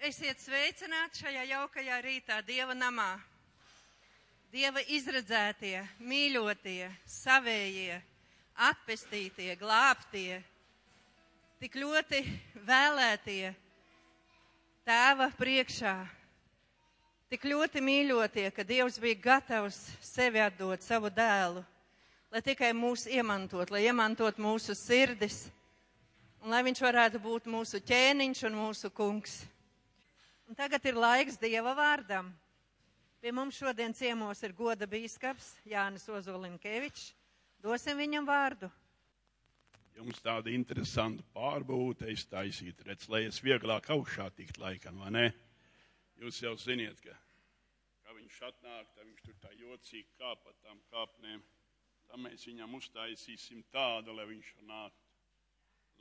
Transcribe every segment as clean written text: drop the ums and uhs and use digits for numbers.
Esiet sveicināti šajā jaukajā rītā Dieva namā. Dieva izredzētie, mīļotie, savējie, atpestītie, glābtie, tik ļoti vēlētie Tēva priekšā, tik ļoti mīļotie, ka Dievs bija gatavs sevi atdot, savu dēlu, lai tikai mūs iemantot, lai iemantot mūsu sirdis, un lai viņš varētu būt mūsu ķēniņš un mūsu kungs. Un tagad ir laiks Dieva vārdam. Pie mums šodien ciemos ir goda bīskaps Jānis Ozolinkevičs. Dosim viņam vārdu. Jums tāda interesanta pārbūve taisīt, redz, lai es vieglāk augšā tikt laikam, vai ne? Jūs jau ziniet, ka viņš atnāk, tad viņš tur tā jocīgi kāp pa tām kāpnēm. Tā mēs viņam uztaisīsim tādu, lai viņš nāk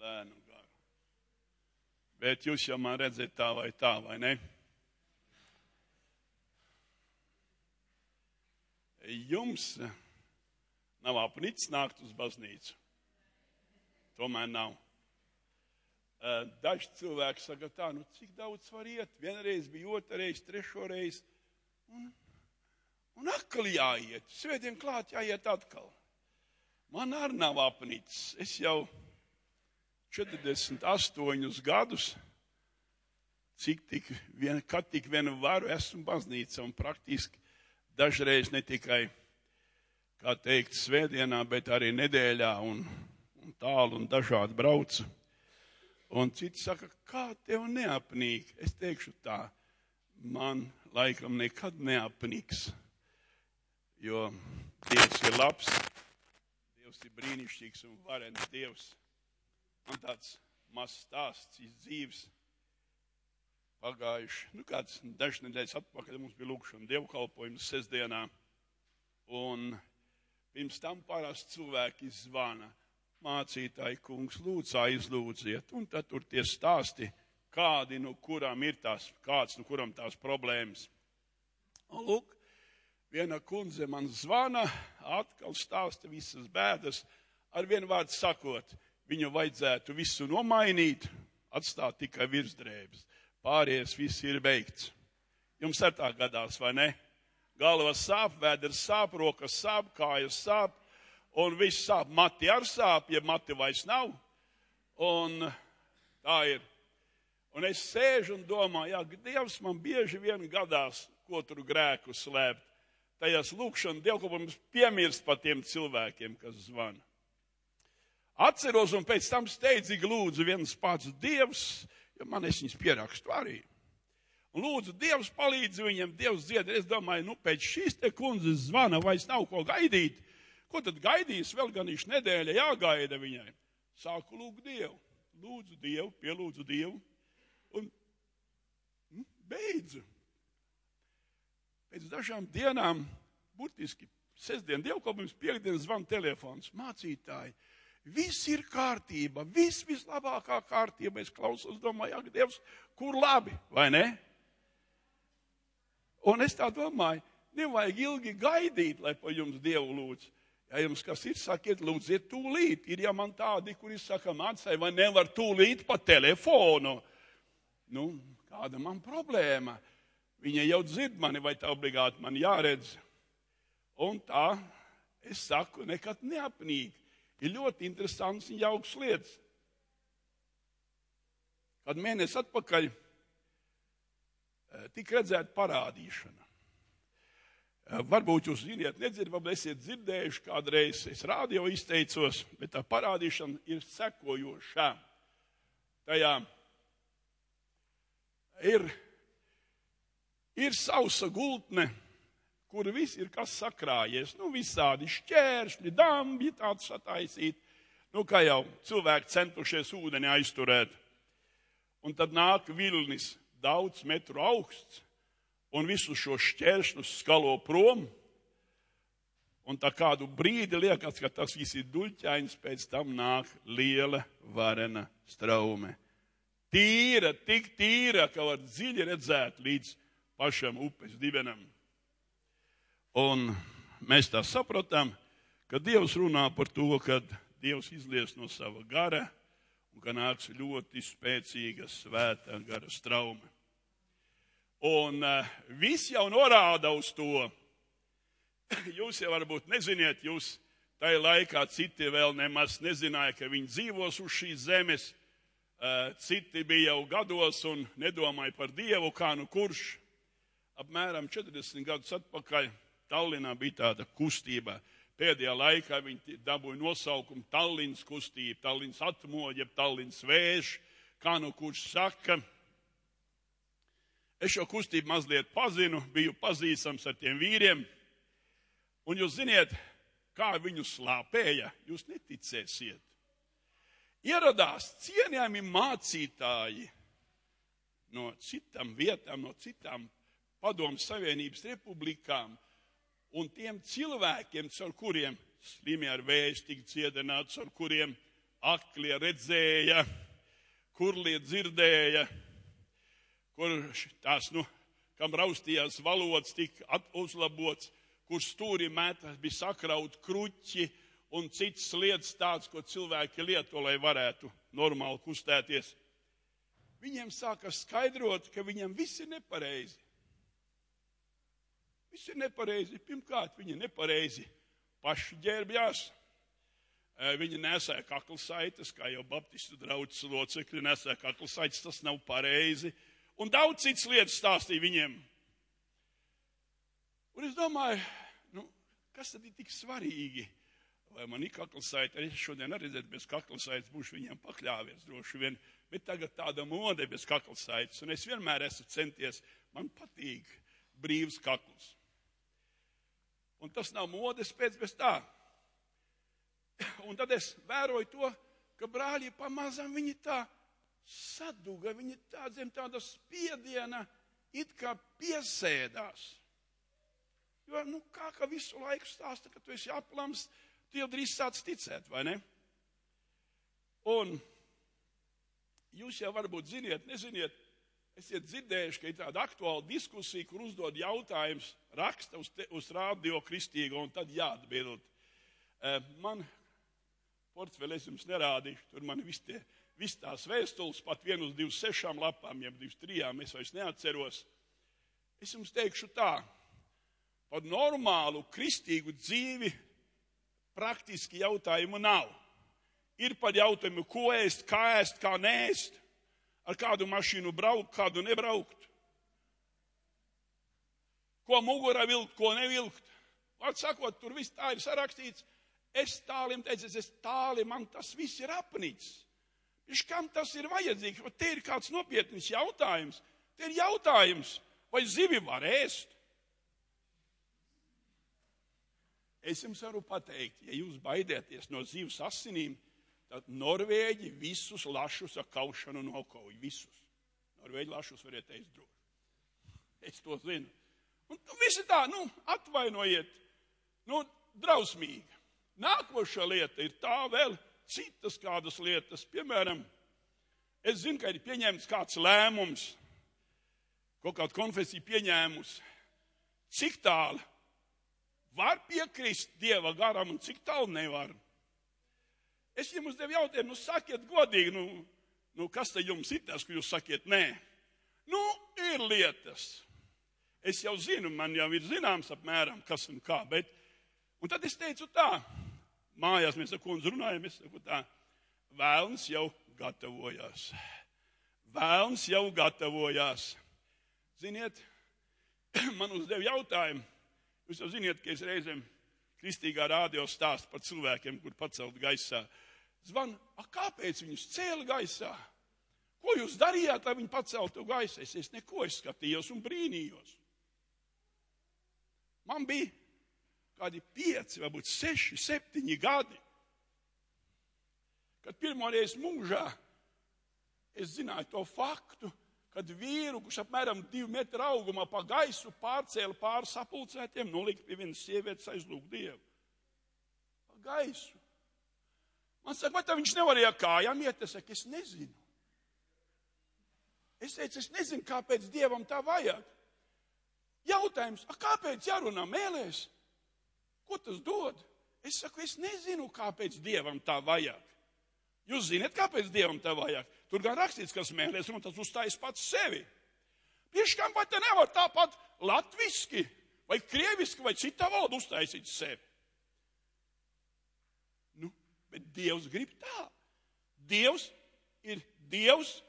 lēnu garu. Bet jūs jau man redzat tā, vai ne? Jums nav apnicis nākt uz baznīcu. Tomēr nav. Daži cilvēki saka tā, cik daudz var iet? Vienreiz bija, otrreiz, trešoreiz. Un atkal jāiet. Svētdien klāt jāiet atkal. Man arī nav apnicis. Es jau 48 gadus, kad tik vienu varu esmu baznīca un praktiski dažreiz ne tikai, kā teikt, svētdienā, bet arī nedēļā un tālu un dažādi braucu. Un citi saka, kā tev neapnīk? Es teikšu tā, man laikam nekad neapnīks, jo Dievs ir labs, Dievs ir brīnišķīgs un varens Dievs. Man tāds mazs stāsts iz dzīves pagājuši, kāds dažas nedēļas atpakaļ mums bija lūkšana dievkalpojums sestdienā, un pirms tam parasti cilvēki zvana, mācītāji kungs, lūdzu aizlūdziet, un tad tur tie stāsti, kāds no kuram tās problēmas. Un lūk, viena kundze man zvana, atkal stāsta visas bēdas, ar vienu vārdu sakot, viņu vajadzētu visu nomainīt, atstāt tikai virsdrēbes. Pārējais viss ir beigts. Jums ar tā gadās, vai ne? Galva sāp, vēders sāp, rokas sāp, kājas sāp, un viss sāp. Mati ar sāp, ja mati vairs nav. Un tā ir. Un es sēžu un domāju, Dievs man bieži vien gadās, ko tur grēku slēpt. Tajās lūkšana dievkalpojums piemirst par tiem cilvēkiem, kas zvana. Atceros un pēc tam steidzīgi lūdzu viens pats Dievs, jo man es viņus pierakstu arī. Un lūdzu, Dievs palīdz viņam, Dievs dzied. Es domāju, pēc šīs te kundzes zvana vairs nav ko gaidīt. Ko tad gaidīs? Vēl gan viņš nedēļa jāgaida viņai. Sāku lūgt Dievu. Lūdzu Dievu, pielūdzu Dievu. Un beidzu. Pēc dažām dienām, burtiski sestdien dievkalpojums, piekdien zvan telefons. Mācītāji, viss ir kārtība, vislabākā kārtība. Es klausos, domāju, Dievs, kur labi, vai ne? Un es tā domāju, nevajag ilgi gaidīt, lai pa jums Dievu lūdz. Ja jums kas ir, sakiet, lūdziet tūlīt. Ir jau man tādi, kuri saka, mācai, vai nevar tūlīt pa telefonu. Kāda man problēma? Viņa jau dzird mani, vai tā obligāti man jāredz. Un tā, es saku, nekad neapnīk. Ir ļoti interesants un jauks lietas. Kad mēnesi atpakaļ tika redzēta parādīšana. Varbūt jūs ziniet, nedzirdat, varbūt esiet dzirdējuši kādreiz, es rādio izteicos, bet tā parādīšana ir sekojošā. Tajā ir sausa gultne, kur viss ir kas sakrājies. Visādi šķēršļi, dambi tāds sataisīt. Kā jau cilvēki centušies ūdeni aizturēt. Un tad nāk vilnis daudz metru augsts un visus šos šķēršļus skalo prom. Un tā kādu brīdi liekas, ka tas viss ir duļķains, pēc tam nāk liela varena straume. Tīra, tik tīra, ka var dziļi redzēt līdz pašam upes dibenam. Un mēs tā sapratām, ka Dievs runā par to, ka Dievs izlies no sava gara un ka nāks ļoti spēcīga svētā gara straume. Un viss jau norāda uz to. Jūs jau varbūt neziniet, jūs tajā laikā citi vēl nemaz nezināja, ka viņi dzīvos uz šīs zemes. Citi bija jau gados un nedomāja par Dievu, kā nu kurš. Apmēram 40 gadus atpakaļ Tallinā bija tāda kustība. Pēdējā laikā viņi dabūja nosaukumu Tallinas kustība, Tallinas atmoģa, Tallinas vējš, kā nu kurš saka. Es šo kustību mazliet pazinu, biju pazīstams ar tiem vīriem. Un jūs ziniet, kā viņu slāpēja, jūs neticēsiet. Ieradās cienījami mācītāji no citām vietām, no citām Padomju Savienības republikām, un tiem cilvēkiem, caur kuriem slimi ar vēzi tika dziedināts, caur kuriem aklie redzēja, kurlie dzirdēja, kur tās, kam raustījās valodas tika uzlabots, kur stūri mētās bija sakraut kruķi un citas lietas tāds, ko cilvēki lieto, lai varētu normāli kustēties. Viņiem sāka skaidrot, ka viņiem viss ir nepareizi. Viss ir nepareizi. Pirmkārt, viņi nepareizi paši ģērbjās. Viņi nesēja kaklasaitas, kā jau baptistu draudzes locekļi nesēja kaklasaitas, tas nav pareizi. Un daudz citas lietas stāstīja viņiem. Un es domāju, kas tad ir tik svarīgi? Vai man ir kaklasaita? Es šodien arī redzētu, bez kaklasaitas būšu viņiem pakļāvies droši vien. Bet tagad tāda mode bez kaklasaitas. Un es vienmēr esmu centies, man patīk brīvs kakls. Un tas nav modes pēc bez tā. Un tad es vēroju to, ka brāļi pamazām viņi tā saduga, viņi tā zem tāda spiediena it kā piesēdās. Jo, kā visu laiku stāsta, ka tu esi aplams, tu jau drīz sāc ticēt, vai ne? Un jūs jau varbūt ziniet, neziniet, esiet dzirdējuši, ka ir tāda aktuāla diskusija, kur uzdod jautājums, raksta uz Radio Kristīgo, un tad jāatbild. Man portfeli es jums nerādīšu, tur man viss tās vēstules, pat 1 uz 26 lapām, jeb 23, es vairs neatceros. Es jums teikšu tā, par normālu kristīgu dzīvi praktiski jautājumu nav. Ir par jautājumu, ko ēst, kā neēst, ar kādu mašīnu braukt, kādu nebraukt. Ko mugurā vilkt, ko nevilkt. Vārds sakot, tur viss tā ir sarakstīts. Es tālim teicu, man tas viss ir apnicis. Viņš kam tas ir vajadzīgs? Te ir kāds nopietnis jautājums. Te ir jautājums, vai zivi var ēst? Es jums varu pateikt, ja jūs baidieties no zivs asinīm, tad Norvēģi visus lašus ar kaušanu nokauj. Visus. Norvēģi lašus variet ēst droši. Es to zinu. Un visi tā, atvainojiet, drausmīgi. Nākošā lieta ir tā vēl citas kādas lietas. Piemēram, es zinu, ka ir pieņemts kāds lēmums, kaut kāda konfesija pieņēmus, cik tālu var piekrist Dieva garam un cik tālu nevar. Es jums uzdevu jautājumu, sakiet godīgi, kas te jums ir tas, ka jūs sakiet nē? Ir lietas. Es jau zinu, man jau ir zināms apmēram, kas un kā, un tad es teicu tā, mājās mēs ar kundzi runājam, es saku tā, vēlns jau gatavojās. Vēlns jau gatavojās. Ziniet, man uzdev jautājumu, jūs jau ziniet, ka es reizēm Kristīgā radio stāstu par cilvēkiem, kur pacelt gaisā. Zvan, kāpēc viņus cēla gaisā? Ko jūs darījāt, lai viņi paceltu gaisā? Es neko skatījos un brīnījos. Man bija kādi 5, varbūt 6, 7 gadi, kad pirmoreiz mūžā es zināju to faktu, kad vīru, kurš apmēram 2 metru augumā pa gaisu pārcēla pāri sapulcētiem, nolika pie vienas sievietes aizlūgt Dievu. Pa gaisu. Man saka, vai tā viņš nevarēja kājām iet? Es saku, es nezinu. Es teicu, es nezinu, kāpēc Dievam tā vajag. Jautājums, kāpēc jārunā mēlēs? Ko tas dod? Es saku, es nezinu, kāpēc Dievam tā vajag. Jūs zināt, kāpēc Dievam tā vajag? Tur gan rakstīts, kas mēlēs, un tas uzstājas pats sevi. Pieškām vai te nevar tāpat latviski, vai krieviski, vai citā valodā uztaisīt sevi? Bet Dievs grib tā. Dievs ir Dievs,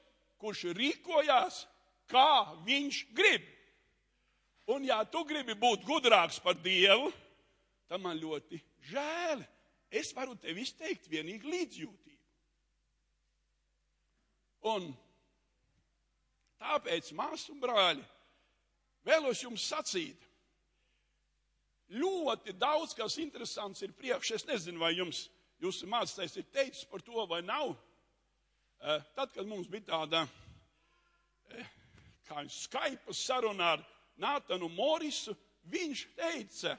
kurš rīkojās, kā viņš grib. Un ja tu gribi būt gudrāks par Dievu, tad man ļoti žēl. Es varu tev izteikt vienīgi līdzjūtību. Un tāpēc, māsas un brāļi, vēlos jums sacīt, ļoti daudz, kas interesants ir priekš. Es nezinu, vai jūsu mācītājs ir teicis par to vai nav. Tad, kad mums bija tāda Skype saruna ar Nātanu Morisu, viņš teica,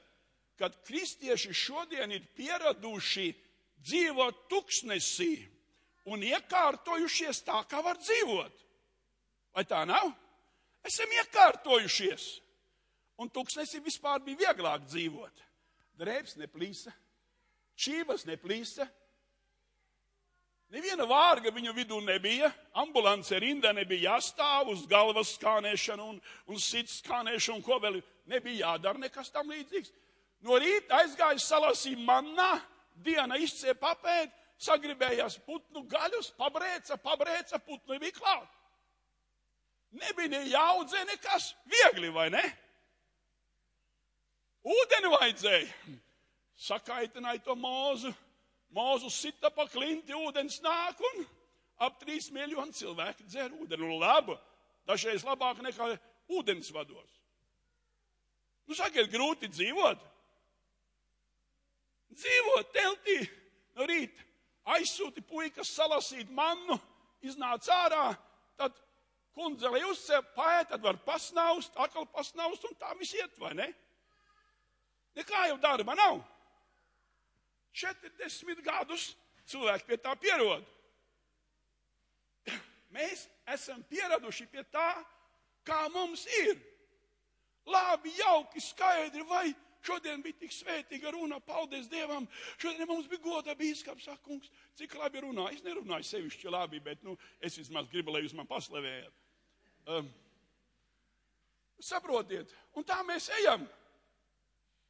ka kristieši šodien ir pieraduši dzīvot tuksnesī un iekārtojušies tā, kā var dzīvot. Vai tā nav? Esam iekārtojušies. Un tuksnesī vispār bija vieglāk dzīvot. Drēbes neplīsa. Čības neplīsa. Neviena vārga viņu vidū nebija. Ambulance rindā nebija jāstāv uz galvas skānēšanu un sirds skānēšanu, ko vēl nebija jādara nekas tam līdzīgs. No rīta aizgāja salasīja mannā, diena izcēja papēt, sagribējās putnu gaļus, pabrēca, putnu bija klāt. Nebija jāaudzē nekas, viegli, vai ne? Ūdeni vajadzēja. Sakaitināja to mūzu. Mūzu sita pa klinti, ūdens nāk un ap 3 miljoni cilvēki dzer ūdeni. Labi, dažreiz labāk nekā ūdens vados. Sakiet, grūti dzīvot. Dzīvot teltī no rīta. Aizsūti puikas salasīt mannu, iznāc ārā, tad kundzeli uzcēp, paēt, tad var pasnaust, atkal pasnaust un tā viss iet, vai ne? Nekā jau darba nav. 40 gadus cilvēki pie tā pierod. Mēs esam pieraduši pie tā, kā mums ir. Labi, jauki, skaidri, vai šodien bija tik svētīga runa, paldies Dievam. Šodien mums bija goda bīskaps, saka, kungs, cik labi runā. Es nerunāju sevišķi labi, bet es vismaz gribu, lai jūs man paslavējat. Saprotiet, un tā mēs ejam.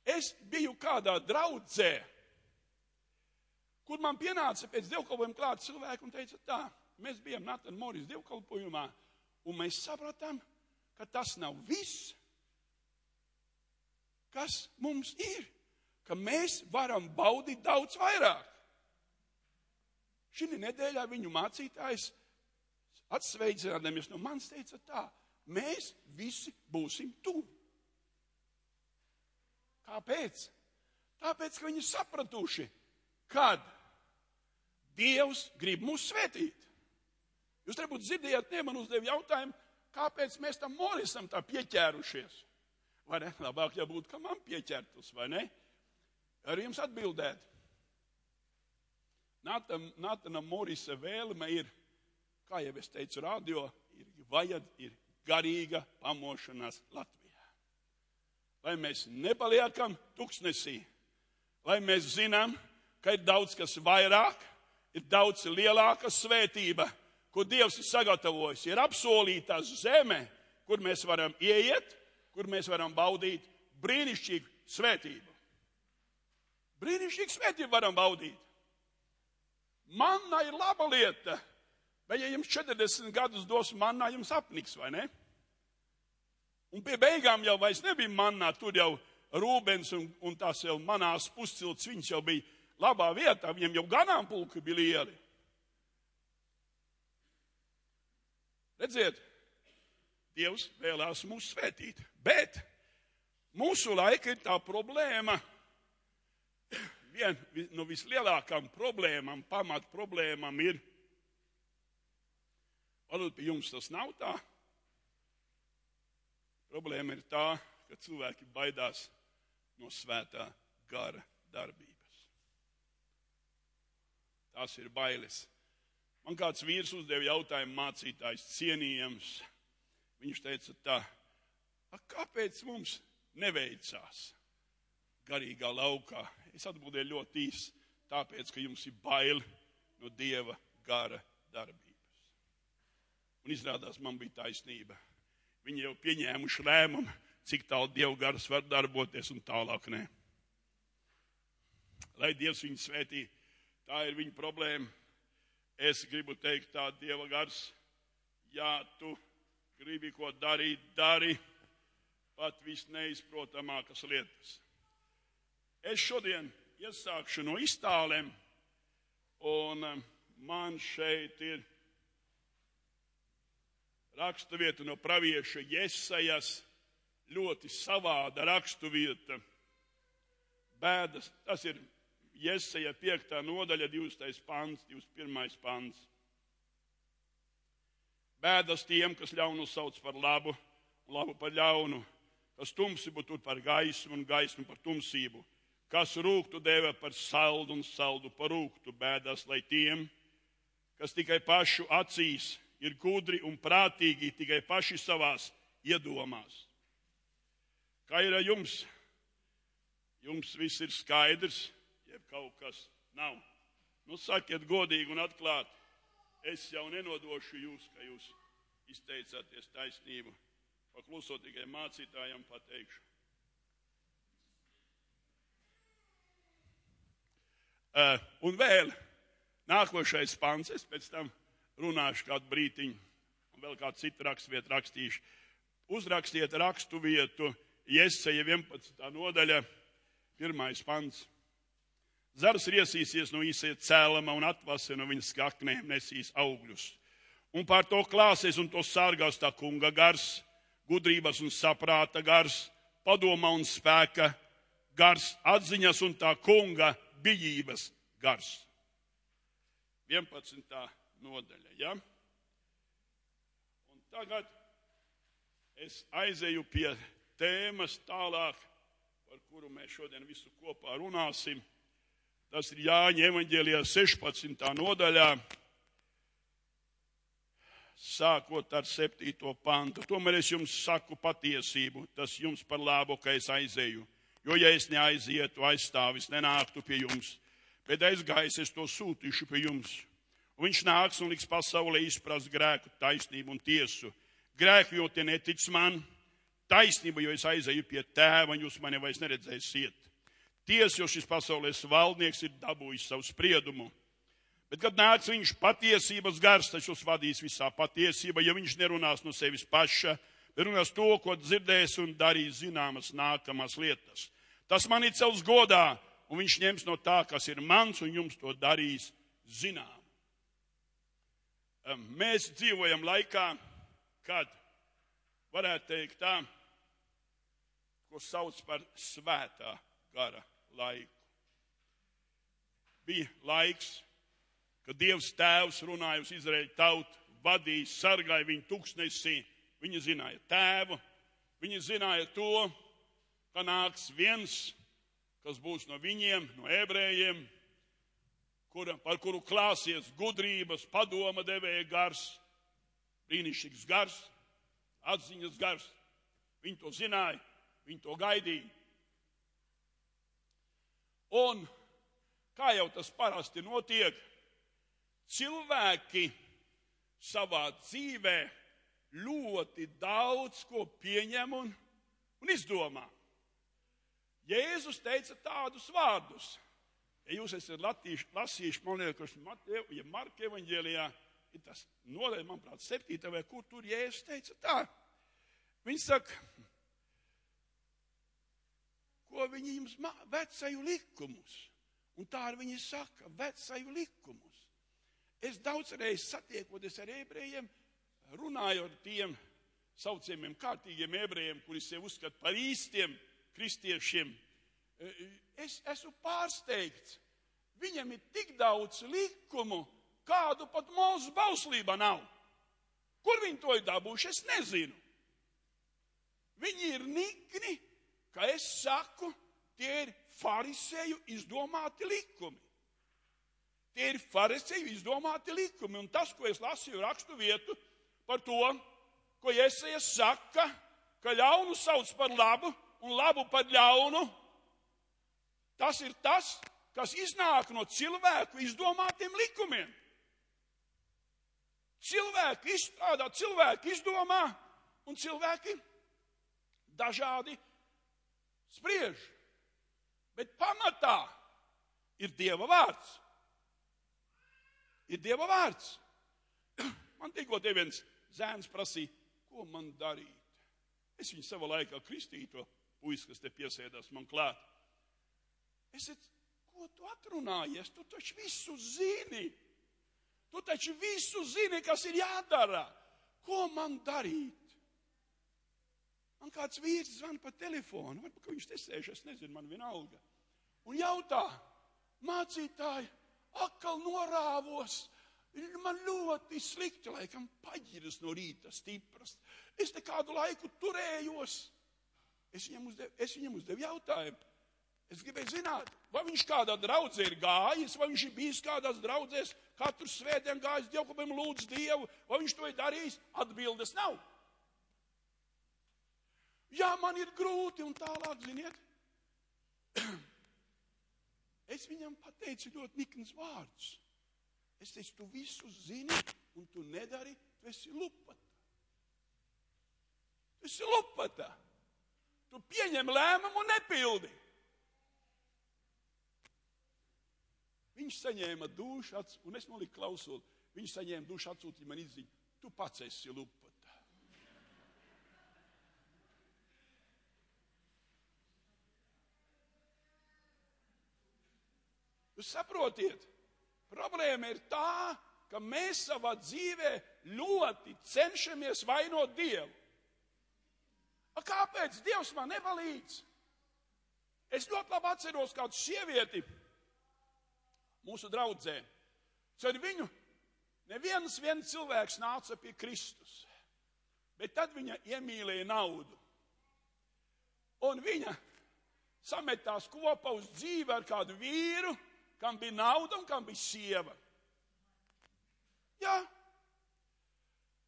Es biju kādā draudzē, kur man pienāca pēc dievkalpojuma klāt cilvēki un teica tā, mēs bijām Nātana Morisa dievkalpojumā, un mēs sapratām, ka tas nav viss, kas mums ir, ka mēs varam baudīt daudz vairāk. Šī nedēļā viņu mācītājs atsveicinādamies no manis teica tā, mēs visi būsim tuvi. Kāpēc? Tāpēc, ka viņi sapratuši, kad Dievs grib mūs svētīt. Jūs varbūt dzirdējāt, man uzdev jautājumu, kāpēc mēs tam Morisam tā pieķērušies. Vai ne? Labāk jau būtu, ka man pieķertus, vai ne? Arī jums atbildēt. Nātana Morisa vēlme ir, kā jau es teicu radio, ir garīga pamošanās Latvijā. Lai mēs nepaliekam tuksnesī, lai mēs zinām, ka ir daudz kas vairāk, ir daudz lielāka svētība, ko Dievs ir sagatavojis. Ir apsolītā zeme, kur mēs varam ieiet, kur mēs varam baudīt brīnišķīgu svētību. Brīnišķīgu svētību varam baudīt. Manna ir laba lieta, bet ja jums 40 gadus dos mannā, jums apniks, vai ne? Un pie beigām jau vairs nebija mannā, tur jau Rūbens un tās jau manās puscilts, viņš jau bija labā vietā, viņam jau ganāmpulki bija lieli. Redziet, Dievs vēlās mūs svētīt, bet mūsu laika ir tā problēma, viena no vislielākām problēmām, pamat problēmām ir, varbūt pie jums tas nav tā, problēma ir tā, ka cilvēki baidās no svētā gara darbības. Tās ir bailes. Man kāds vīrs uzdeva jautājumu, mācītājs cienījams. Viņš teica tā, kāpēc mums neveicās garīgā laukā? Es atbildēju ļoti īsi, tāpēc, ka jums ir bail no Dieva gara darbības. Un izrādās, man bija taisnība. Viņi jau pieņēmuši lēmumu, cik tālu Dieva gars var darboties un tālāk nē. Lai Dievs viņu svētī, tā ir viņa problēma. Es gribu teikt tā, Dieva gars, ja tu gribi ko darīt, dari pat visneizprotamākas lietas. Es šodien iesākšu no iztālēm, un man šeit ir raksturvieta no pravieša Jesajas, ļoti savāda raksturvieta. Bēdas, tas ir Jesaja 5. nodaļa, 20. pants, 21. pants. Bēdas tiem, kas ļaunu sauc par labu, un labu par ļaunu, kas tumsību tur par gaismu un gaismu par tumsību, kas rūgtu dēvē par saldu un saldu par rūgtu. Bēdas, lai tiem, kas tikai pašu acīs ir gudri un prātīgi, tikai paši savās iedomās. Kā ir ar jums? Jums viss ir skaidrs, jeb kaut kas nav. Nu, sakiet godīgi un atklāti. Es jau nenodošu jūs, ka jūs izteicāties taisnību. Paklusot tikai mācītājam pateikšu. Un vēl nākošais pants, es pēc tam runāšu kādu brītiņu, un vēl kādu citu raksturvietu rakstīšu. Uzrakstiet raksturvietu Jesaja 11. nodaļa, 1. pants. Zars riesīsies no īsajā cēlama un atvase no viņas skaknēm nesīs augļus. Un pār to klāsies un to sārgās tā kunga gars, gudrības un saprāta gars, padoma un spēka gars, atziņas un tā kunga bijības gars. 11. nodaļa, ja? Un tagad es aizeju pie tēmas tālāk, par kuru mēs šodien visu kopā runāsim. Tas ir Jāņa evaņģēlijā 16. nodaļā, sākot ar 7. pantu. Tomēr es jums saku patiesību, tas jums par labu, ka es aizeju. Jo, ja es neaizietu, aizstāvis nenāktu pie jums, bet aizgājis es to sūtīšu pie jums. Un viņš nāks un liks pasaulē izprast grēku, taisnību un tiesu. Grēku, jo tie netic man, taisnība, jo es aizeju pie tēva, un jūs mani vairs neredzēsiet. Tiesa, jo šis pasaules valdnieks ir dabūjis savu spriedumu. Bet, kad nāks viņš patiesības gars, tas jūs vadīs visā patiesībā, ja viņš nerunās no sevis paša, bet runās to, ko dzirdēs un darīs zināmas nākamās lietas. Tas mani cels godā, un viņš ņems no tā, kas ir mans, un jums to darīs zinām. Mēs dzīvojam laikā, kad varētu teikt tā, ko sauc par svētā gara laiku. Bija laiks, kad Dievs tēvs runāja uz Izraēļu tautu, vadīja, sargāja viņu tuksnesī. Viņi zināja tēvu, viņi zināja to, ka nāks viens, kas būs no viņiem, no ebrejiem, par kuru klāsies gudrības, padoma devēja gars, brīnišķīgs gars, atziņas gars. Viņi to zināja, viņi to gaidīja. Un, kā jau tas parasti notiek, cilvēki savā dzīvē ļoti daudz ko pieņem un izdomā. Jēzus teica tādus vārdus. Ja jūs esat lasījuši, man liekas, ja Marka evaņģēlijā, ir tas nodaļa, manuprāt, 7. vai kur tur Jēzus teica tā. Viņš saka, ko viņi jums vecaju likumus. Un tā arī viņi saka, vecaju likumus. Es daudzreiz satiekoties ar ebrejiem, runāju ar tiem saucamiem kārtīgiem ebrejiem, kuri sev uzskata par īstiem kristiešiem. Es esmu pārsteigts. Viņam ir tik daudz likumu, kādu pat Mūzes bauslībā nav. Kur viņi to ir dabūjuši, es nezinu. Viņi ir nikni, ka es saku, tie ir farisēju izdomāti likumi. Tie ir farisēju izdomāti likumi. Un tas, ko es lasīju rakstu vietu par to, ko Jesajas saka, ka ļaunu sauc par labu un labu par ļaunu, tas ir tas, kas iznāk no cilvēku izdomātiem likumiem. Cilvēki izstrādā, cilvēki izdomā, un cilvēki dažādi spriež. Bet pamatā ir Dieva vārds. Ir Dieva vārds. Man tikko te viens zēns prasīja, ko man darīt. Es viņu savā laikā kristīju, to puisi, kas te piesēdās man klāt. Es teicu, ko tu atrunājies? Tu taču visu zini. Tu taču visu zini, kas ir jādara. Ko man darīt? Man kāds vīrs zvana pa telefonu, varbūt, ka viņš te sēž, es nezinu, man vienalga. Un jautā, mācītāji, atkal norāvos, man ļoti slikti, laikam paģiras no rīta stipras. Es te kādu laiku turējos. Es viņam uzdevu jautājumu. Es gribēju zināt, vai viņš kādā draudzē ir gājis, vai viņš ir bijis kādās draudzēs, katru svētdien gājis dievkalpojumā lūdz Dievu, vai viņš to ir darījis. Atbildes nav. Jā, man ir grūti un tālāk, ziniet. Es viņam pateicu ļoti nikns vārds. Es teicu, tu visu zini un tu nedari, tu esi lupata. Tu esi lupata. Tu pieņem lēmumu un nepildi. Viņš saņēma dušu, un es noliku klausuli. Viņš saņēma dušu, atsūtīja man izziņu. Tu pats esi lupata. Jūs saprotiet, problēma ir tā, ka mēs savā dzīvē ļoti cenšamies vainot Dievu. Kāpēc Dievs man nepalīdz? Es ļoti labi atceros kādu sievieti mūsu draudzē. Ar viņu neviens cilvēks nāca pie Kristus, bet tad viņa iemīlēja naudu. Un viņa sametās kopā uz dzīvi ar kādu vīru, kam bija nauda un kam bija sieva. Jā.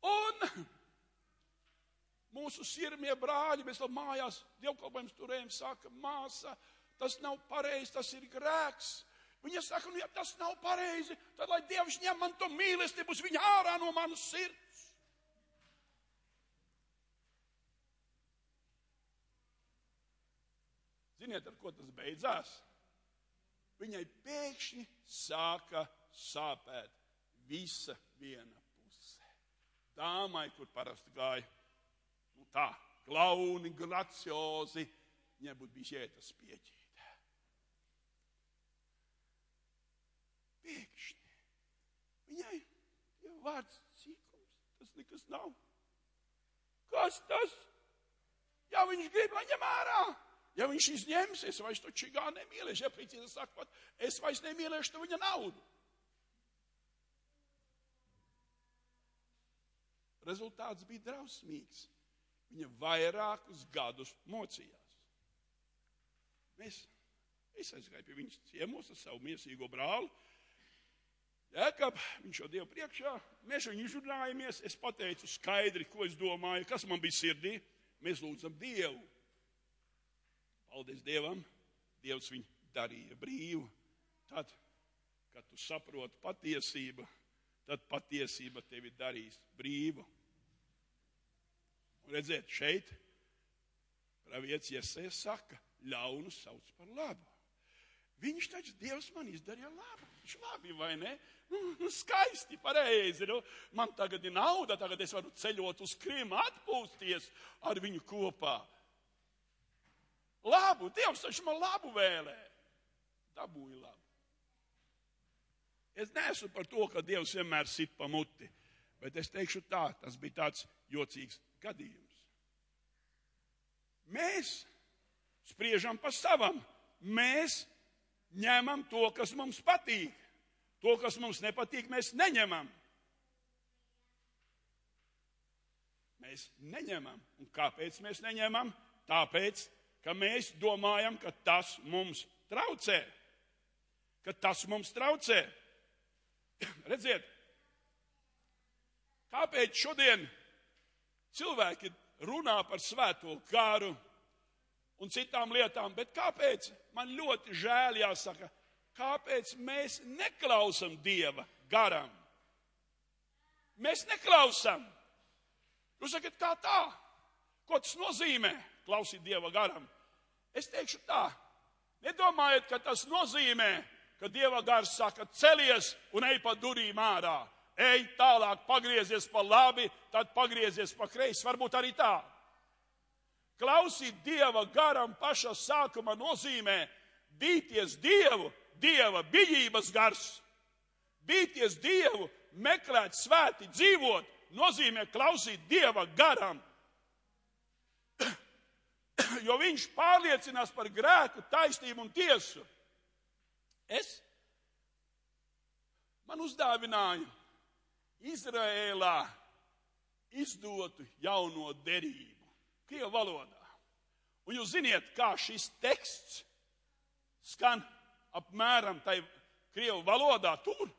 Un mūsu sirmie brāļi, mēs vēl mājās dievkalpojums turējam, saka, māsa, tas nav pareizi, tas ir grēks. Viņa saka, ja tas nav pareizi, tad lai Dievs ņem man to mīlestību uz viņa ārā no manas sirds. Ziniet, ar ko tas beidzās? Viņai pēkšņi sāka sāpēt visa viena puse. Dāmai, kur parasti gāja, tā, glauni, graciozi, viņai būtu bijis jētas pieķīt. Pēkšņi. Viņai jau vārds cīkums, tas nekas nav. Kas tas? Ja viņš grib, lai ņem ārā. Ja viņš izņems, es vairs to čigā nemīlēšu. Ja precīzi sakot, es vairs nemīlēšu to viņa naudu. Rezultāts bija drausmīgs. Viņa vairākus gadus mocījās. Es aizgāju pie viņas ciemos ar savu miesīgo brāli. Jēkab, viņš jau Dievu priekšā. Mēs viņu izrunājamies. Es pateicu skaidri, ko es domāju, kas man bija sirdī. Mēs lūdzam Dievu. Paldies Dievam, Dievs viņu darīja brīvu. Tad, kad tu saproti patiesību, tad patiesība tevi darīs brīvu. Un redziet, šeit pravietis Jesaja saka, ļaunu sauc par labu. Viņš taču, Dievs man izdarīja labu. Viņš labi, vai ne? Skaisti, pareizi. Man tagad ir nauda, tagad es varu ceļot uz Krimu, atpūsties ar viņu kopā. Labu, Dievs taču man labu vēlē. Dabūja labu. Es neesmu par to, ka Dievs vienmēr sit pa muti, bet es teikšu tā, tas bija tāds jocīgs gadījums. Mēs spriežam pa savam. Mēs ņemam to, kas mums patīk. To, kas mums nepatīk, mēs neņemam. Mēs neņemam. Un kāpēc mēs neņemam? Tāpēc, ka mēs domājam, ka tas mums traucē. Ka tas mums traucē. Redziet, kāpēc šodien cilvēki runā par svēto garu un citām lietām, bet kāpēc, man ļoti žēl jāsaka, kāpēc mēs neklausam Dieva garam? Mēs neklausam. Jūs sakat, kā tā? Ko tas nozīmē, klausīt Dieva garam? Es teikšu tā, nedomājiet, ka tas nozīmē, ka Dieva gars saka, celies un ej pa durīm ārā. Ej tālāk, pagriezies pa labi, tad pagriezies pa kreisi. Varbūt arī tā. Klausīt Dieva garam pašā sākuma nozīmē bīties Dievu, Dieva bijības gars. Bīties Dievu, meklēt svēti, dzīvot, nozīmē klausīt Dieva garam. Jo viņš pārliecinās par grēku, taisnību un tiesu. Man uzdāvināja Izrēlā izdotu jauno derību, krievu valodā. Un jūs ziniet, kā šis teksts skan apmēram tai krievu valodā tur.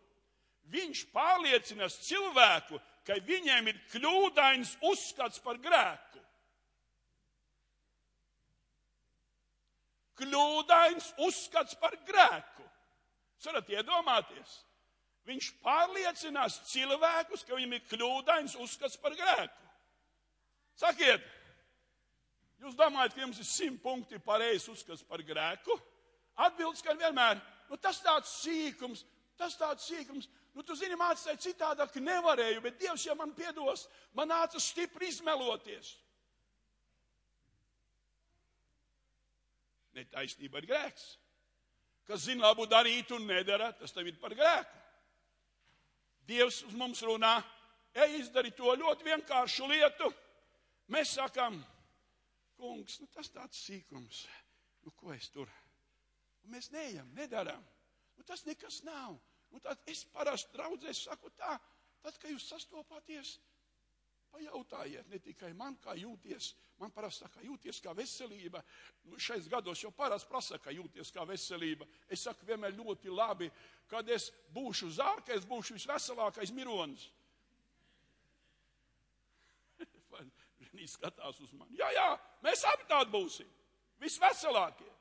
Viņš pārliecinās cilvēku, ka viņiem ir kļūdains uzskats par grēku. Kļūdains uzskats par grēku. Jūs varat iedomāties? Viņš pārliecinās cilvēkus, ka viņiem ir kļūdains uzskats par grēku. Sakiet, jūs domājat, ka jums ir 100 punkti pareizs uzskats par grēku? Atbildes, ka vienmēr, tas tāds sīkums. Tu zini, mācītāji citādāk nevarēju, bet Dievs jau man piedos, man nāca stipri izmeloties. Netaisnība ir grēks. Kas zina labu darīt un nedara, tas tev ir par grēku. Dievs uz mums runā, ej izdari to ļoti vienkāršu lietu. Mēs sakam, kungs, tas tāds sīkums, ko es tur? Un mēs neejam, nedaram. Tas nekas nav. Tad es parasti draudzēs saku tā, tad, kad jūs sastopāties, pajautājiet ne tikai man, kā jūties. Man parasti saka, jūties kā veselība. Šais gados jau parasti prasa, ka jūties kā veselība. Es saku vienmēr ļoti labi, kad es būšu zārka, es būšu visveselākais mironis. Viņi skatās uz mani. Jā, mēs abi tādi būsim. Visveselākie.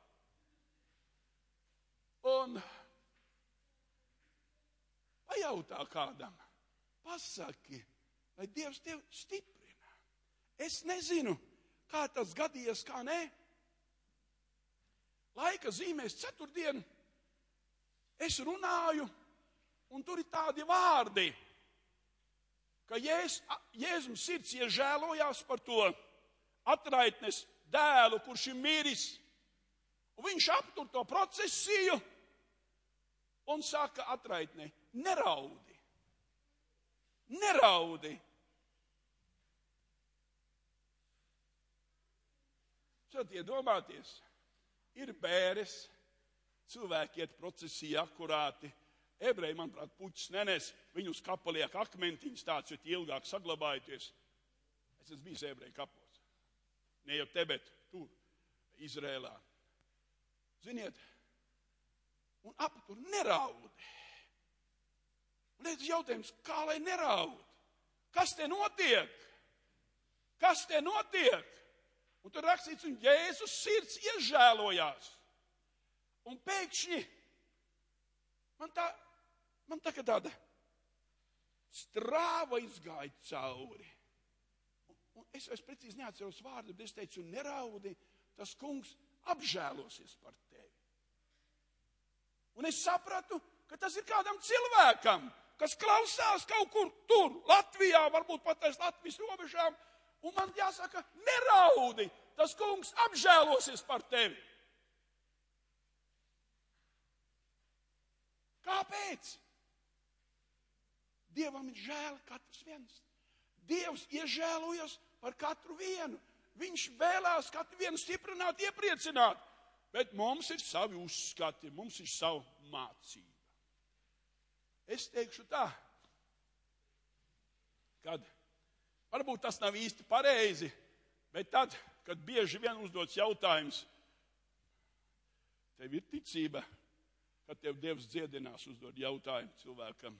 Un pajautā kādam, pasaki, lai Dievs tevi stiprina. Es nezinu, kā tas gadījies, kā nē. Laika zīmēs ceturtdien es runāju, un tur ir tādi vārdi, ka Jēzum sirds iežēlojās par to atraitnes dēlu, kurš ir miris. Un viņš aptur to procesiju un saka atraitnei, neraudi. Neraudi. Tad iedomāties, ir bēres, cilvēki iet procesijā akurāti, ebreji, manuprāt, puķis nenes, viņu uz kapa liek akmentiņus tāds, jo tie ilgāk saglabājoties. Es esmu bijis ebreju kapos. Ne jau te, bet tur, Izrēlā. Ziniet, un aptur neraudi. Un redz jautājums, kā lai neraud? Kas te notiek? Kas te notiek? Un tur rakstīts, un Jēzus sirds iežēlojās. Un pēkšņi man tā kā tāda strāva izgāja cauri. Un es precīzi neatceros vārdu, bet es teicu, neraudi, tas kungs apžēlosies par tevi. Un es sapratu, ka tas ir kādam cilvēkam, kas klausās kaut kur tur, Latvijā, varbūt pat aiz Latvijas robežām, un man jāsaka, neraudi, tas kungs apžēlosies par tevi. Kāpēc? Dievam ir žēl katrs viens. Dievs iežēlojas par katru vienu. Viņš vēlās katru vienu stiprināt, iepriecināt. Bet mums ir savi uzskati, mums ir savu mācība. Es teikšu tā, kad varbūt tas nav īsti pareizi, bet tad, kad bieži vien uzdots jautājums, tev ir ticība, kad tev Dievs dziedinās uzdod jautājumu cilvēkam.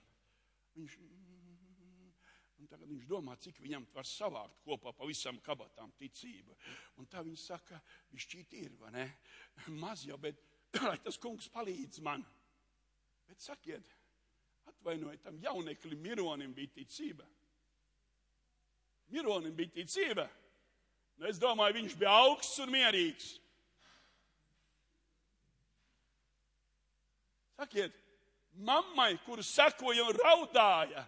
Un tagad viņš domā, cik viņam var savākt kopā pa visam kabatām ticību. Un tā viņš saka, bišķīt ir, vai ne? Maz jau, bet lai tas kungs palīdz man. Bet sakiet, atvainojiet, tam jauneklim Mironim bija ticība. Mironim bija ticība. Nu, es domāju, viņš bija augsts un mierīgs. Sakiet, mammai, kuru sekoja un raudāja,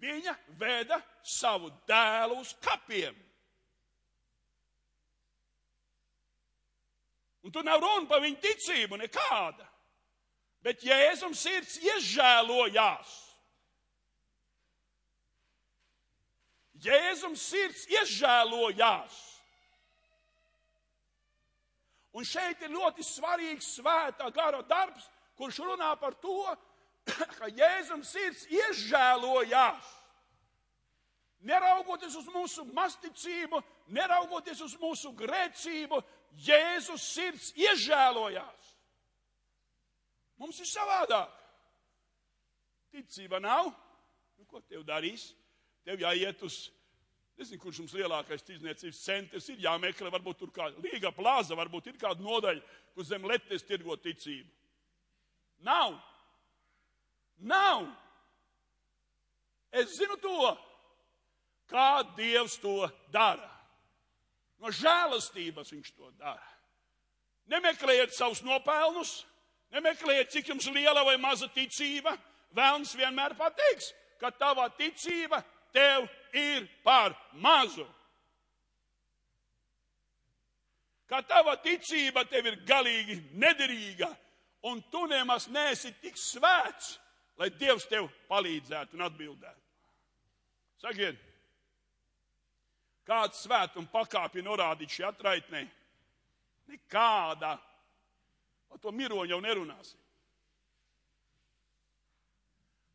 viņa veda savu dēlu uz kapiem. Un tur nav runa par viņu ticību nekāda. Bet Jēzum sirds iežēlojās. Jēzum sirds iežēlojās. Un šeit ir ļoti svarīgs svētā gara darbs, kurš runā par to, ka Jēzum sirds iežēlojās. Neraugoties uz mūsu masticību, neraugoties uz mūsu grēcību, Jēzus sirds iežēlojās. Mums ir savādāk. Ticība nav. Nu, ko tev darīs? Tev jāiet uz, nezinu, kurš mums lielākais tirdzniecības centrs ir, jāmeklē, varbūt tur kāda Līga plāza, varbūt ir kāda nodaļa, kur zem letes tirgo ticību. Nav. Nav. Es zinu to, kā Dievs to dara. No žēlastības viņš to dara. Nemeklējiet savus nopelnus, nemeklējiet, cik jums liela vai maza ticība. Velns vienmēr pateiks, ka tava ticība tev ir par mazu. Ka tava ticība tev ir galīgi nederīga, un tu nemaz neesi tik svēts, lai Dievs tev palīdzētu un atbildētu. Sakiet, kāds svētuma pakāpja norādīt šī atraitnē? Nekāda. Par to miroņu jau nerunāsim.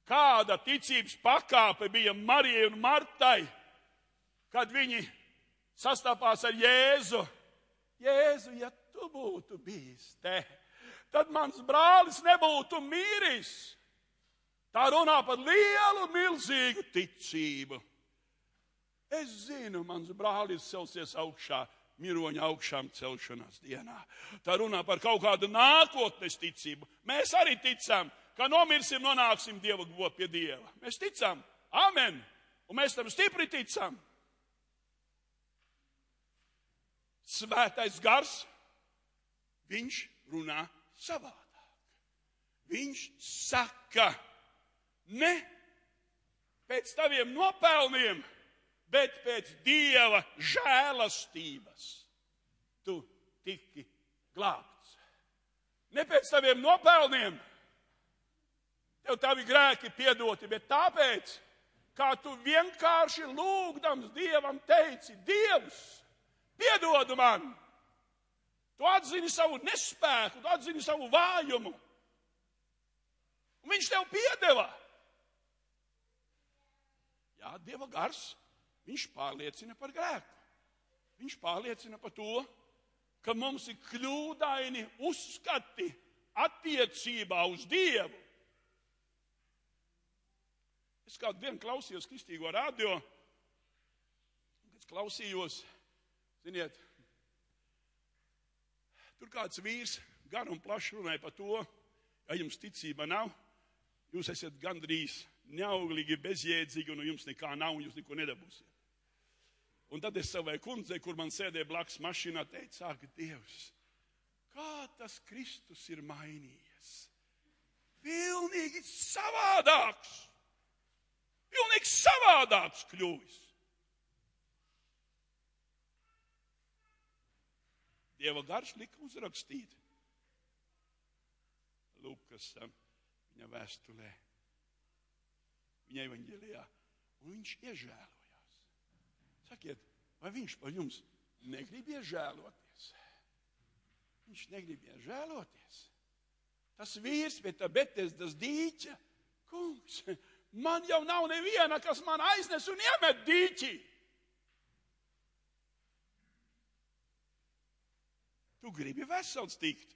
Kāda ticības pakāpe bija Marijai un Martai, kad viņi sastapās ar Jēzu? Jēzu, ja tu būtu bijis te, tad mans brālis nebūtu miris. Tā runā par lielu, milzīgu ticību. Es zinu, mans brālis celsies augšā, miroņa augšām celšanās dienā. Tā runā par kaut kādu nākotnes ticību. Mēs arī ticam, ka nomirsim, nonāksim Dieva pie Dieva. Mēs ticam. Amen. Un mēs tam stipri ticam. Svētais gars, viņš runā savādāk. Viņš saka, ne pēc taviem nopelniem, bet pēc Dieva žēlastības tu tiki glābts. Ne pēc taviem nopelniem, tev tavi grēki piedoti, bet tāpēc, kā tu vienkārši lūgdams Dievam teici, Dievs, piedod man. Tu atzini savu nespēku, tu atzini savu vājumu. Un viņš tev piedeva. Jā, Dieva gars, viņš pārliecina par grēku. Viņš pārliecina par to, ka mums ir kļūdaini uzskati attiecībā uz Dievu. Es kādu dienu klausījos kristīgo radio, kad es klausījos, ziniet, tur kāds vīrs gar un plaši runāja par to, ja jums ticība nav, jūs esat gandrīz neauglīgi, bezjēdzīgi, un jums nekā nav, un jūs neko nedabūsiet. Un tad es savai kundzei, kur man sēdēja blakus mašīnā, teicu, ak, Dievs, kā tas Kristus ir mainījies. Pilnīgi savādāks. Pilnīgi savādāks kļuvis. Dieva gars lika uzrakstīt Lukas viņa vēstulē, viņa evaņģēlijā, un viņš iežēlojās. Sakiet, vai viņš par jums negrib iežēloties? Viņš negrib iežēloties. Tas vīrs pie tā Betesdas dīķa, kungs, man jau nav neviena, kas man aiznes un iemet dīķi. Tu gribi vesels tikt.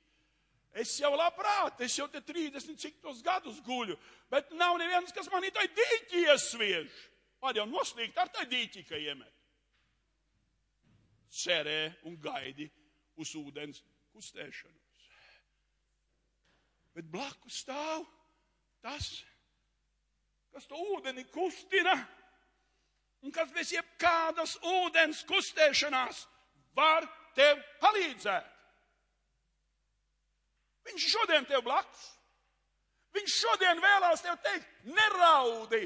Es jau labprāt, es jau te 30 cik tos gadus guļu, bet nav neviens, kas man tai dīķi iesviež. Var jau noslīgt ar tai dīķi, ka iemet. Cerē un gaidi uz ūdens kustēšanos. Bet blakus stāv tas, kas to ūdeni kustina, un kas bez jebkādas ūdens kustēšanās var tev palīdzēt. Viņš šodien tev blakus. Viņš šodien vēlās tev teikt, neraudi,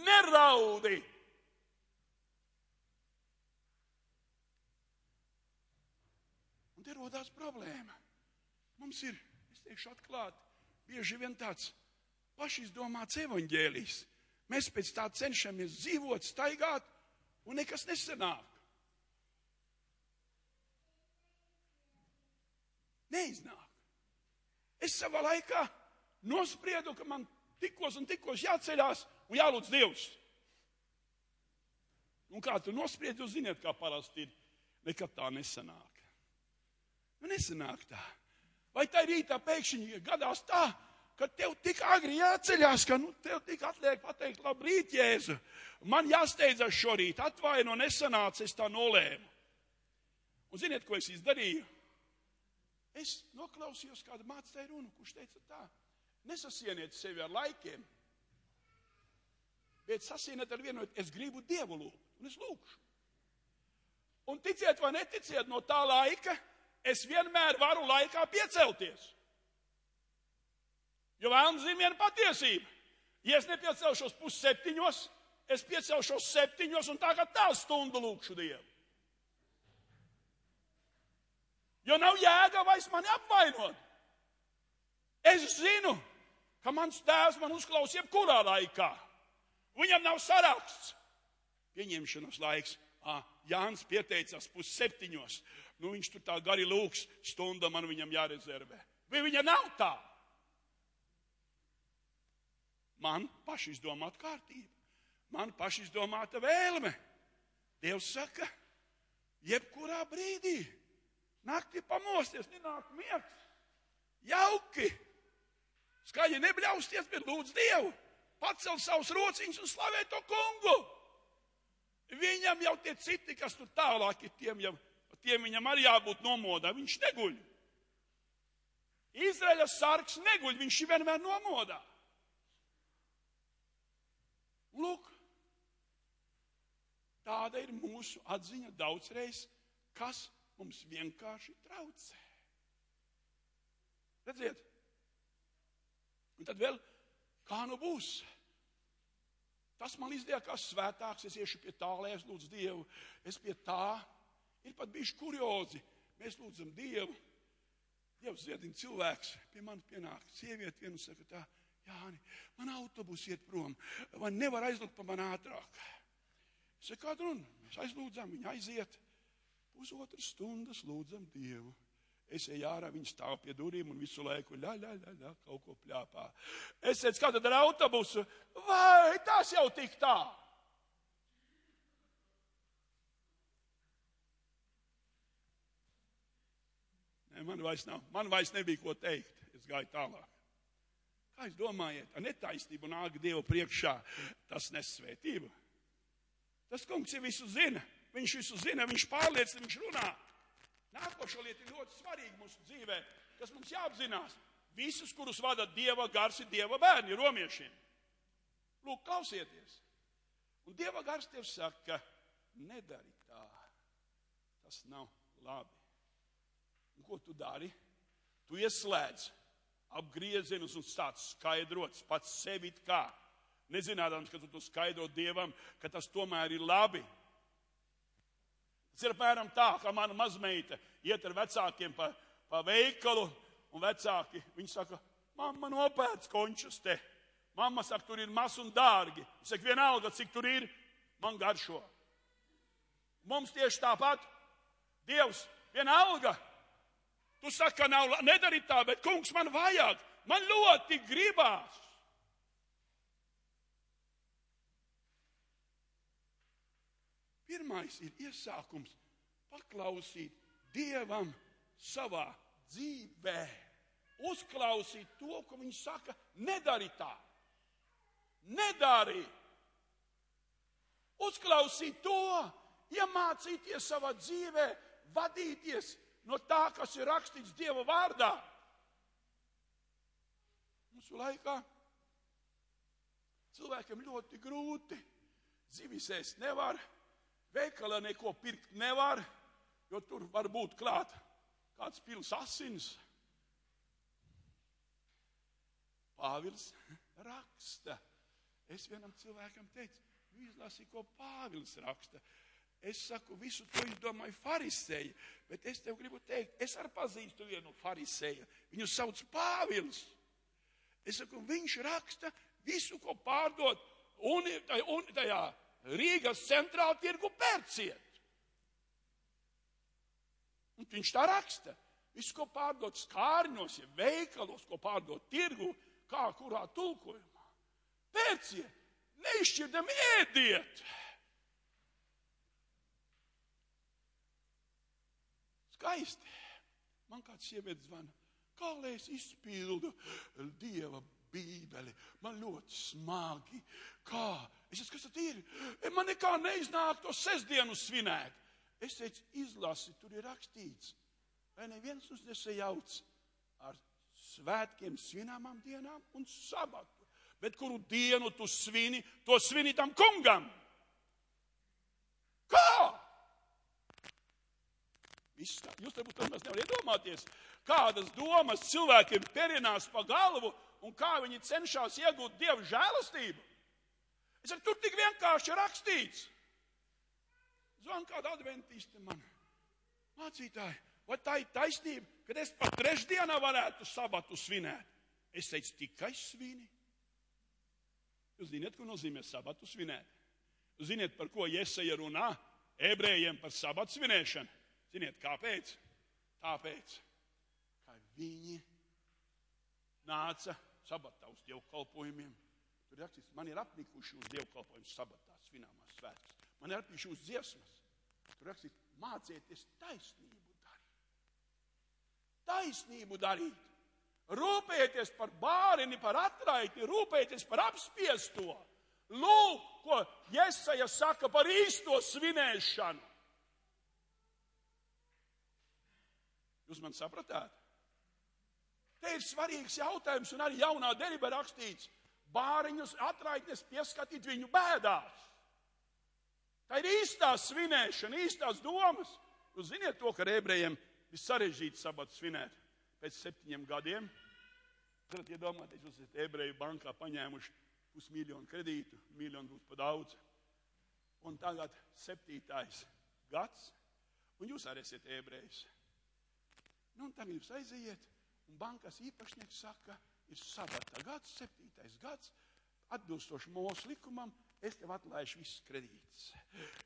neraudi. Un te rodās problēma. Mums ir, es teikšu atklāti, bieži vien tāds pašizdomāts evaņģēlijs. Mēs pēc tā cenšamies dzīvot, staigāt, un nekas nesanāk. Neiznāk. Es savā laikā nospriedu, ka man tikos un tikos jāceļās un jālūdz Dievs. Un kā tu nospriedi, jūs ziniet, kā parasti ir. Nekad tā nesanāk. Nu, nesanāk tā. Vai tā rītā pēkšņi gadās tā, ka tev tik agri jāceļās, ka tev tik atliek pateikt, labrīt, Jēzu. Man jāsteidzas šorīt, atvaino, nesanāca, es tā nolēmu. Un ziniet, ko es izdarīju? Es noklausījos kādu mācītāju runu, kurš teica tā, nesasieniet sevi ar laikiem, bet sasieniet ar vienu, es gribu Dievu lūgt, un es lūgšu. Un ticiet vai neticiet, no tā laika es vienmēr varu laikā piecelties. Jo vēlams zina viena patiesība. Ja es nepiecelšos 6:30, es piecelšos 7 un tagad tā stundu lūkšu Dievu. Jo nav jēga vairs mani apvainot. Es zinu, ka mans tēvs man uzklaus jebkurā laikā. Viņam nav saraksts. Pieņemšanas laiks. Jānis pieteicās 6:30. Viņš tur tā gari lūks, stunda man viņam jārezervē. Vai viņa nav tā? Man pašizdomāta kārtība. Man pašizdomāta vēlme. Dievs saka, jebkurā brīdī. Naktī pamosties, nenāk miegs. Jauki. Skaļi nebļausties, bet lūdz Dievu. Pacel savus rociņus un slavē to kungu. Viņam jau tie citi, kas tur tālāk ir, tiem viņam arī jābūt nomodā. Viņš neguļ. Izraēļa sargs neguļ, viņš ir vienmēr nomodā. Lūk, tāda ir mūsu atziņa daudzreiz, kas mums vienkārši traucē. Redziet? Un tad vēl, kā nu būs? Tas man izliekās svētāks, es iešu pie tā, lai es lūdzu Dievu. Es pie tā, ir pat bijuši kuriozi. Mēs lūdzam Dievu. Dievs ziedina cilvēks, pie manis pienāk sieviete vienu saka tā, Jāni, man autobus iet prom, vai nevar aizlūgt pa man ātrāk. Es saku, kādu runu? Mēs aizlūdzam, viņa aiziet. 1,5 stundas lūdzam Dievu. Es eju ārā, viņa stāv pie durīm un visu laiku kaut ko pļāpā. Es teicu, kā tad ar autobusu? Vai tas jau tik tā? Nē, man vairs nebija ko teikt. Es gāju tālāk. Kā jūs domājat, ar netaisnību nāk Dievu priekšā, tas nes svētību? Tas kungs jau visu zina. Viņš visu zina, viņš pārliecina, viņš runā. Nākošo lietu ir ļoti svarīgi mūsu dzīvē, kas mums jāapzinās. Visus, kurus vada Dieva gars, ir Dieva bērni, romiešiem. Lūk, klausieties. Un Dieva gars tev saka, nedari tā. Tas nav labi. Un ko tu dari? Tu ieslēdz apgriezienus un stāc skaidrots pats sevi kā. Nezinādams, ka tu to skaidro Dievam, ka tas tomēr ir labi. Tas ir apmēram tā, kā mana mazmeita iet ar vecākiem pa veikalu, un vecāki, viņi saka, mamma nopēc končus te. Mamma saka, tur ir maz un dārgi. Viņa saka, vienalga, cik tur ir, man garšo. Mums tieši tāpat. Dievs, vienalga. Tu saki, ka nav, nedari tā, bet kungs man vajag. Man ļoti gribās. Pirmais ir iesākums paklausīt Dievam savā dzīvē. Uzklausīt to, ko viņš saka, nedari tā. Nedari. Uzklausīt to, iemācīties savā dzīvē, vadīties no tā, kas ir rakstīts Dieva vārdā. Mūsu laikā cilvēkiem ļoti grūti, zivis ēst nevar, veikalā neko pirkt nevar, jo tur var būt klāt kāds pils asins. Pāvils raksta. Es vienam cilvēkam teicu, izlasīju, ko Pāvils raksta. Es saku, visu to izdomāju farisēji, bet es tev gribu teikt, es arī pazīstu vienu farisēju. Viņu sauc Pāvils. Es saku, viņš raksta visu, ko pārdot tajā Rīgas centrāla tirgu pērciet. Un viņš tā raksta. Visu, ko pārdot skārņos, ja veikalos, ko pārdot tirgu, kā kurā tulkojumā. Pērciet, neizšķirdam ēdiet. Skaisti. Man kāds sievietes zvana, kā lai es izpildu Dieva bībeli. Man ļoti smagi. Kā? Es saku, kas tad ir? Man nekā neiznāk to sestdienu svinēt. Es teicu, izlasi, tur ir rakstīts. Vai neviens uz nesajauc ar svētkiem, svināmām dienām un sabatu. Bet kuru dienu tu svini, to svini tam kungam. Kā? Jūs varbūt tomēr nevar iedomāties, kādas domas cilvēkiem perinās pa galvu un kā viņi cenšas iegūt Dieva žēlastību. Es saku, tur tik vienkārši rakstīts. Zvan kāda adventiste man. Mācītāji, vai tā ir taisnība, kad es pat trešdienā varētu sabatu svinēt? Es teicu, tikai svini. Jūs ziniet, ko nozīmē sabatu svinēt? Jūs ziniet, par ko Jesaja runā ebrejiem par sabatu svinēšanu? Ziniet, kāpēc? Tāpēc, ka viņi nāca sabatā uz dievkalpojumiem. Tur rakstīts, man ir apnikuši uz dievkalpojumu sabatā, svināmās svētkus. Man ir apnikuši uz dziesmas. Tur rakstīts, mācieties taisnību darīt. Taisnību darīt. Rūpēties par bārini, par atraiti, rūpēties par apspiesto. Lūk, ko Jesaja saka par īsto svinēšanu. Jūs man sapratāt? Te ir svarīgs jautājums, un arī jaunā derībā rakstīts, bāriņus atraitnes pieskatīt viņu bēdās. Tā ir īstā svinēšana, īstās domas. Jūs ziniet to, ka ebrejiem ir sarežģīti sabatu svinēt pēc 7 gadiem. Varat iedomāties, jūs esat ebreju bankā paņēmuši 500 000 kredītu, 1 miljonu būs pa daudz. Un tagad 7. gads, un jūs arī esat ebrejs. Nu, un tagad jūs aiziet, un bankas īpašnieks saka, ir sabata gads, 7. gads, atbilstoši mūsu likumam, es tev atlaišu visas kredītas.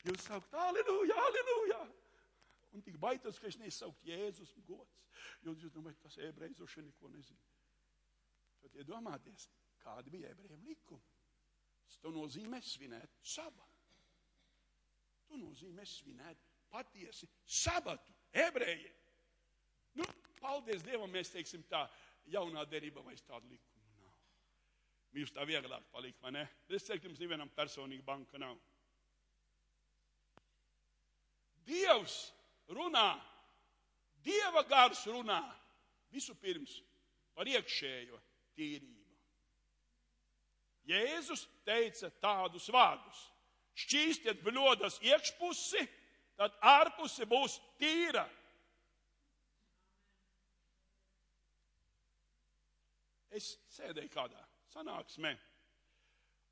Jūs saukt, aleluja, aleluja! Un tik baitos, ka es nesaukt Jēzus gods. Jūs domājat, tas ebrejs droši neko nezina. Tad iedomāties, kādi bija ebrejiem likumi. Tas nozīmē svinēt sabatu. To nozīmē svinēt patiesi sabatu ebrejiem. Nu, paldies Dievam, mēs teiksim tā, jaunā derībā vairs tādu likumu nav. Mums tā vieglāk palikt, vai ne? Es teiktu, jums nevienam personīgi banka nav. Dievs runā, Dieva gars runā visu pirms par iekšējo tīrību. Jēzus teica tādus vārdus. Šķīstiet bļodas iekšpusi, tad ārpusi būs tīra. Es sēdēju kādā sanāksmē,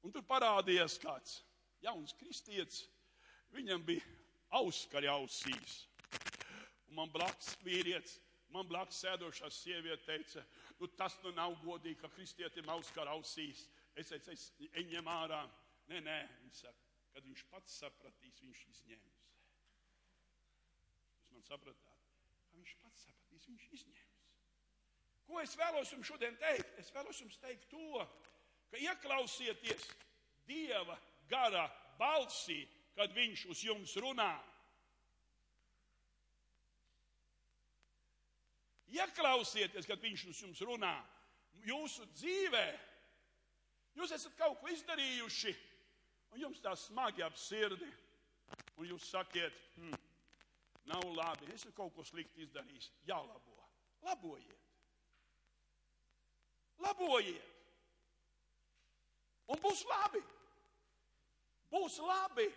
un tur parādījās kāds jauns kristietis. Viņam bija auskari ausīs. Un man blakus vīrietis, man blakus sēdošā sieviete teica, nu tas nu nav godīgi, ka kristietim auskari ausīs. Es teicu, ņem ārā. Nē, viņš saka, kad viņš pats sapratīs, viņš izņems. Jūs man sapratāt? Kad viņš pats sapratīs, viņš izņems. Ko es vēlos jums šodien teikt? Es vēlos jums teikt to, ka ieklausieties Dieva gara balsī, kad viņš uz jums runā. Ieklausieties, kad viņš uz jums runā. Jūsu dzīvē, jūs esat kaut ko izdarījuši, un jums tā smagi ap sirdi, un jūs sakiet, nav labi, es esmu kaut ko slikti izdarījis, jālabo. Labojiet. Labojiet. Un būs labi. Būs labi.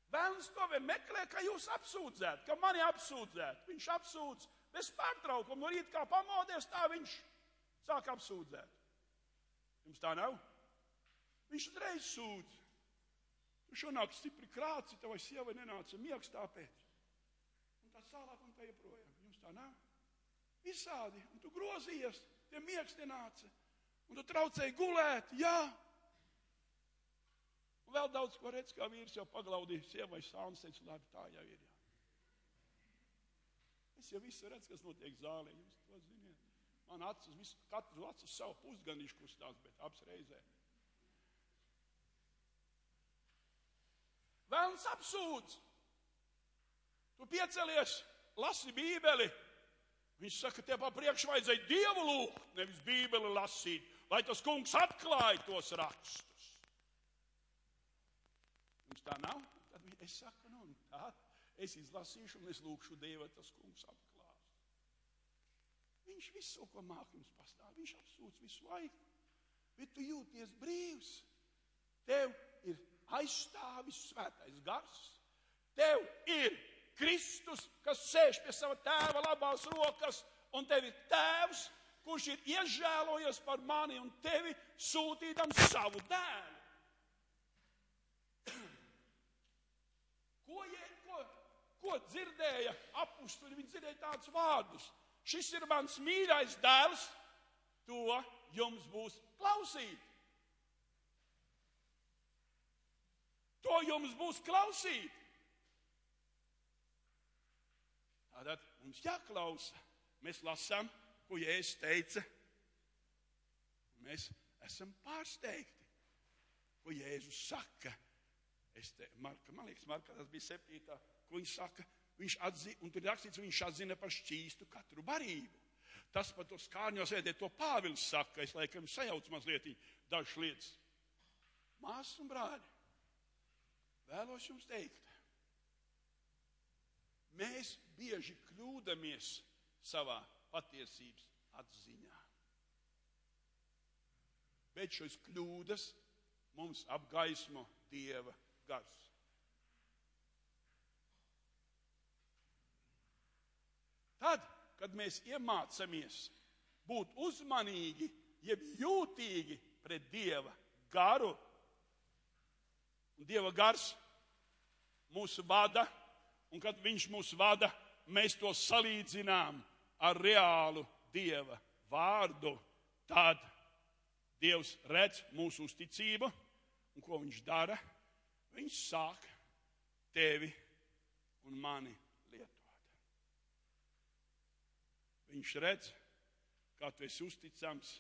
Vēlns to vien meklē, ka jūs apsūdzētu, ka mani apsūdzētu. Viņš apsūdz bez pārtraukuma. No rīta kā pamodies, tā viņš sāk apsūdzēt. Jums tā nav? Viņš uzreiz sūdz. Tu šonāk stipri krāci, tavai sievai nenāca miegs tāpēc. Un tā tālāk un tā joprojām. Jums tā nav? Visādi. Un tu grozījies, tie miegs nenāca. Un tu traucēji gulēt, jā. Un vēl daudz ko redz, kā vīrs jau paglaudīja sievai sāns, teica, labi, tā jau ir, jā. Es jau visu redzu, kas notiek zālē, jūs to ziniet. Man acis, katru acis savu pusganīšu kustās, bet apsreizē. Vēlns apsūdz. Tu piecelies, lasi Bībeli. Viņš saka, tev pa priekšu vajadzēja Dievu lūgt, nevis Bībeli lasīt, lai tas kungs atklāja tos rakstus. Jums tā nav? Tad es saku, nu tā, es izlasīšu un es lūkšu Dievu, tas kungs atklās. Viņš visu, ko māk jums pastāv, viņš apsūdz visu laiku. Bet tu jūties brīvs. Tev ir aizstāvis svētais gars. Tev ir Kristus, kas sēž pie sava tēva labās rokas, un tev ir tēvs, kurš ir iežēlojies par mani un tevi sūtīdam savu dēlu. Ko dzirdēja apustuļi? Viņi dzirdēja tādus vārdus. Šis ir mans mīļais dēls, to jums būs klausīt. To jums būs klausīt. Tātad mums jāklausa. Mēs lasām, ko Jēzus teica. Mēs esam pārsteigti, ko Jēzus saka. Man liekas, Marka, tas bija 7. Ko viņš saka? Viņš atzina, un tur ir rakstīts, viņš atzina par šķīstu katru barību. Tas par to skārņos ēdē, to Pāvils saka, es laikam sajaucu mazliet dažas lietas. Māsas un brāļi, vēlos jums teikt, mēs bieži kļūdamies savā patiesības atziņā. Bet šos kļūdas mums apgaismo Dieva gars. Tad, kad mēs iemācamies būt uzmanīgi, jeb jūtīgi pret Dieva garu, un Dieva gars mūsu vada, un kad viņš mūs vada, mēs to salīdzinām ar reālu Dieva vārdu, tad Dievs redz mūsu uzticību, un ko viņš dara? Viņš sāk tevi un mani lietot. Viņš redz, kā tu esi uzticams,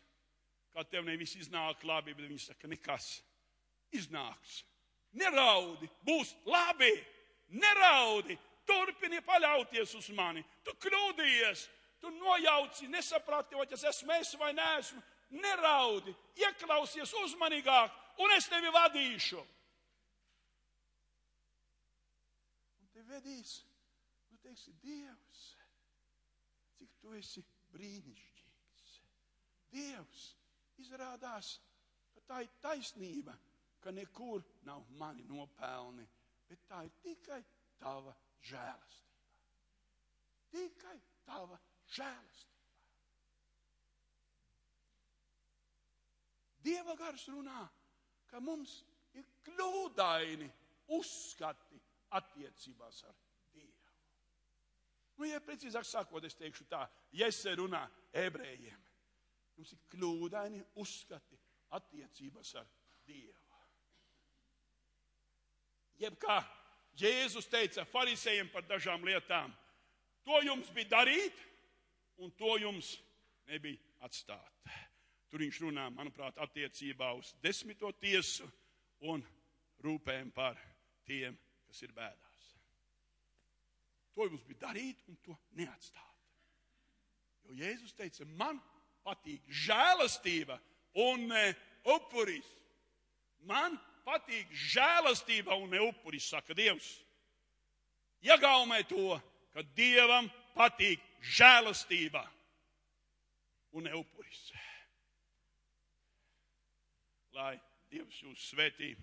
kā tev nevis iznāk labi, bet viņš saka, nekas iznāks. Neraudi, būs labi, neraudi, turpini paļauties uz mani. Tu kļūdījies, tu nojauci, nesaprati, vai tas esmu es vai neesmu. Neraudi, ieklausies uzmanīgāk, un es tevi vadīšu. Un te vedīs, nu teiksi, Dievs, cik tu esi brīnišķīgs. Dievs izrādās, ka tā ir taisnība, ka nekur nav mani nopelni, bet tā ir tikai tava žēlastība. Tikai tava žēlastība. Dieva gars runā, ka mums ir kļūdaini uzskati attiecībās ar Dievu. Nu, ja precīzāk sakot, es teikšu tā, Jese runā ebrejiem. Mums ir kļūdaini uzskati attiecībās ar Dievu. Jeb kā Jēzus teica farisejiem par dažām lietām, to jums bija darīt, un to jums nebija atstāt. Tur viņš runā, manuprāt, attiecībā uz 10. tiesu un rūpēm par tiem, kas ir bēdās. To jums bija darīt un to neatstāt. Jo Jēzus teica, man patīk žēlastība un ne upuris. Man patīk žēlastība un ne upuris, saka Dievs. Iegāumē to, ka Dievam patīk žēlastība un ne upuris. Lai Dievs jūs svētī